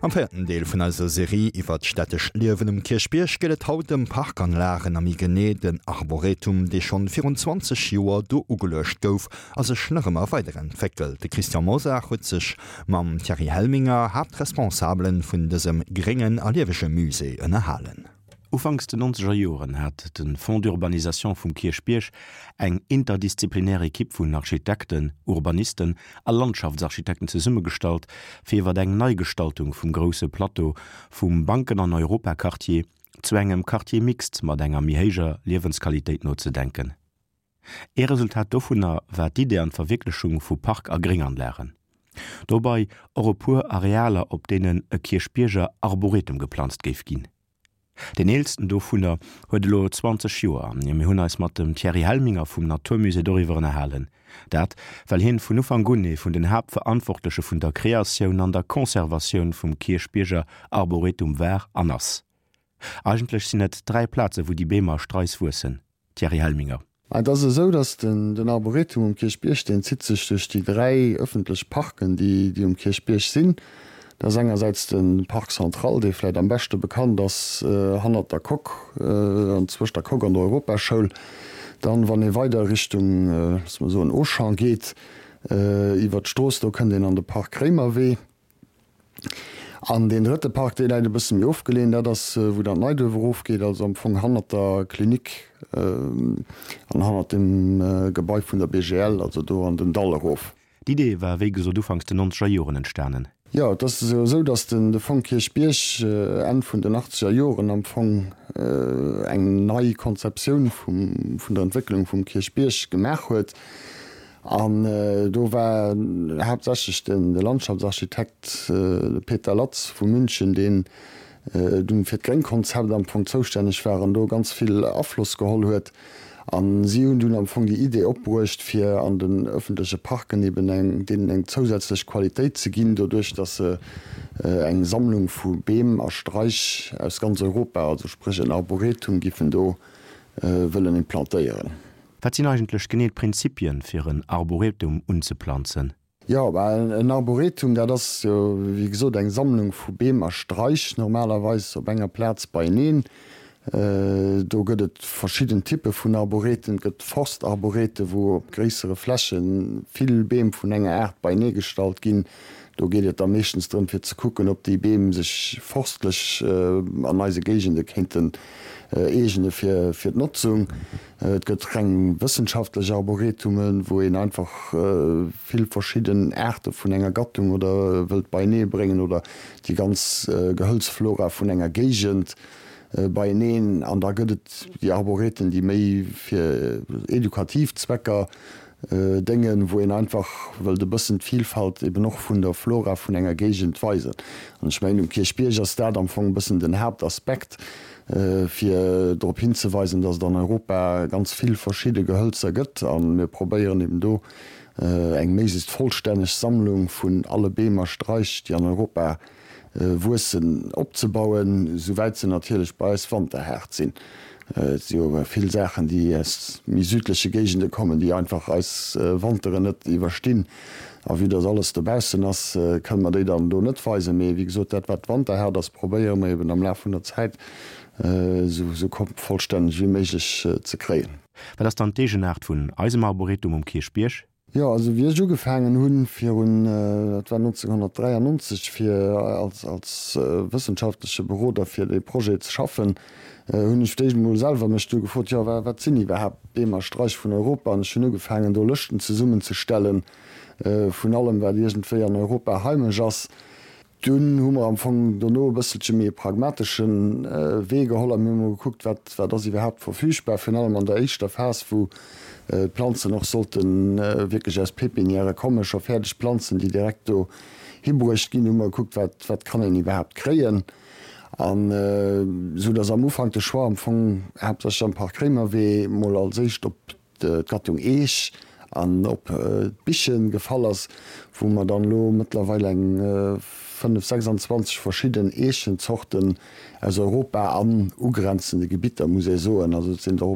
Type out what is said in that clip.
Am véierten Deel vun eiser Serie iwwer d'stättescht Liewen um Kierchbierg geet et haut ëm Parkanlagen a méi genee den Arboretum, dee schonn virun 20 Joer do ugeluecht gouf a sech nach ëmmer weiderentwéckelt. De Christian Mosar huet sech mam Thierry Helminger, Haaptresponsabelen vun dësem gréngen a liewege Musée, ënnerhalen. Ufanks den nonzeger Joren hat de Fonds d'urbanisation vum Kierchbierg eng interdisziplinär Ekipp vun Architekten, Urbanisten a Landschaftsarchitekten zesummegestallt, fir iwwer eng Neigestaltung vum grousse Plateau vum Banken an Europaquartier zu engem Quartier mixte mat enger méi héijer Liewensqualitéit nozedenken. Ee Resultat dovunner war d'Idee an d'Verwierklechung vu Park a Grénganlagen. Dobei och e puer Arealer, op deenen e Kierchbierger Arboretum geplanzt géif ginn. Deen eelsten dovunner huet elo 20 Joer a mir hunn eis mat dem Thierry Helminger vum Naturmusée doriwwer ënnerhalen. Dat, well hien vun Ufank un ee vun den Haaptverantwortleche vun der Kreatioun an der Conservatioun vum Kierchbierger Arboretum war an ass. Eigentlech sinn et 3 Plaze wou déi Beem a Strais wuessen. Thierry Helminger. Et ass esou, datt den Arboretum um Kierchbierg, deen zitt sech duerch déi 3 ëffentlech Parken, déi um Kierchbierg sinn. Dat ass engersäits de Parc Central, dee vläicht am beschte bekannt ass, hannert der Coque an zwëscht der Coque an der Europaschoul. Dann, wann ee weider Richtung, loosse mer soen, Auchan geet, iwwert d'Strooss, do kënnt een an de Parc Réimerwee. An deen drëtte Park, dee läit e bësse méi ofgeleeën, dat ass, wou dann d'Neiduerf erofgeet, also am Fong hannert der Klinik an hannert dem Gebai vun der BGL, also do an den Dall erof. D'Idee war wéi gesot ufanks den nonzeger Joren entstanen. Jo, et ass jo esou, datt den de Fong Kierchbierg Enn vun den achtzeger Joren am Fong eng nei Konzeptioun vum vun der Entwécklung vum Kierchbierg gemaach huet. An do war haaptsächlech de Landschaftsarchitekt, de Peter Latz vu München, deen dunn fir d'Gréngkonzept am Fong zoustänneg war an do ganz vill Afloss geholl huet. A si hunn dunn am Fong déi Idee opbruecht, fir an den ëffentleche Parken eben eng, deenen eng zousätzlech Qualitéit ze ginn, doduerch datt se eng Sammlung vu Beem a Straich aus ganz Europa, also spréch en Arboretum, giffen do wëllen implantéieren. Wat sinn eigentlech genee d'Prinzipien, fir en Arboretum unzeplanzen? Jo, bah, en Arboretum, dat ass jo, wéi gesot, eng Sammlung vu Beem a Straich, normalerweis op enger Plaz beieneen. Do gëtt et verschidden Typpe vun Arboreten. Et gëtt Forstarborete, wou op gréissere Fläche vill Beem vun enger Aart beienee gestallt ginn. Do geet et da meeschtens drëm, fir ze kucken, ob déi Beem sech forstlech an eise Géigende kéinten eegene fir d'Notzung. Et gëtt reng wëssenschaftlech Arboretumen, wou een einfach vill verschidden Aarte vun enger Gattung oder wëllt beienee bréngen oder déi ganz Gehëlzflora vun enger Géigend beieneen. An da gëtt et déi Arboreten, déi méi fir edukativ Zwecker déngen, wou een einfach wëllt e bëssen d'Vilfalt eben och vun der Flora vun enger Géigend weisen. An ech mengen, um Kierchbierg ass dat am Fong e bëssen den Haaptaspekt, fir drop hinzeweisen, dass et an Europa ganz vill verschidde Gehölzer gëtt. A mir probéieren eben do eng méiglechst vollstänneg Sammlung vun alle Beem a Straich, déi an Europa wuessen, opzebauen, souwäit se natierlech bei eis wanterhaart sinn. Et si jo vill Saachen, déi aus méi südleche Géigende kommen, déi einfach eis Wanteren net iwwerstinn. A vue dass alles dobaussen ass, kënne mer déi dann do net weisen. Mee wéi gesot, dat wat wanterhaart ass, probéiere mer eben am Laf vun der Zäit esou vollstänneg wéi méiglech ze kréien. Wat ass dann d'Eegenaart vun eisem Arboretum um Kierchbierg? Jo, also wéi ech ugefaangen hunn, virun, dat war 1993, fir als, als wëssenschaftleche Beroder fir dee Projet ze schaffen, hunn ech fir d'éischt emol selwer mech du gefrot, jo, wa, wat sinn iwwerhaapt d'Beem a Straich vun Europa? An ech hunn ugefaangen, do Lëschten zesummenzestellen vun allem, wat iergendwéi an Europa heimesch ass. Dunn hu mer am Fong dono e bësselche méi e pragmatesche Wee geholl a mir hu mol gekuckt, wat, wat ass iwwerhaapt verfügbar, virun allem an der éischter Phas, wou d'Planzen och sollte wierklech aus Pépinièrë kommen, scho fäerdeg Planzen, déi direkt do hibruecht ginn, hu mer gekuckt, wat, wat kann een iwwerhaapt kréien. An esou datt am Ufank de Choix am Fong haaptsächlech am Parc Réimerwee mol als éischt op d'Gattung Eech an op d'Biche gefall ass, wou mer dann elo mëttlerweil eng 5, 26 verschidden Eechenzorten aus Europa an ugrenzende Gebitter, muss ee soen, also et sinn der.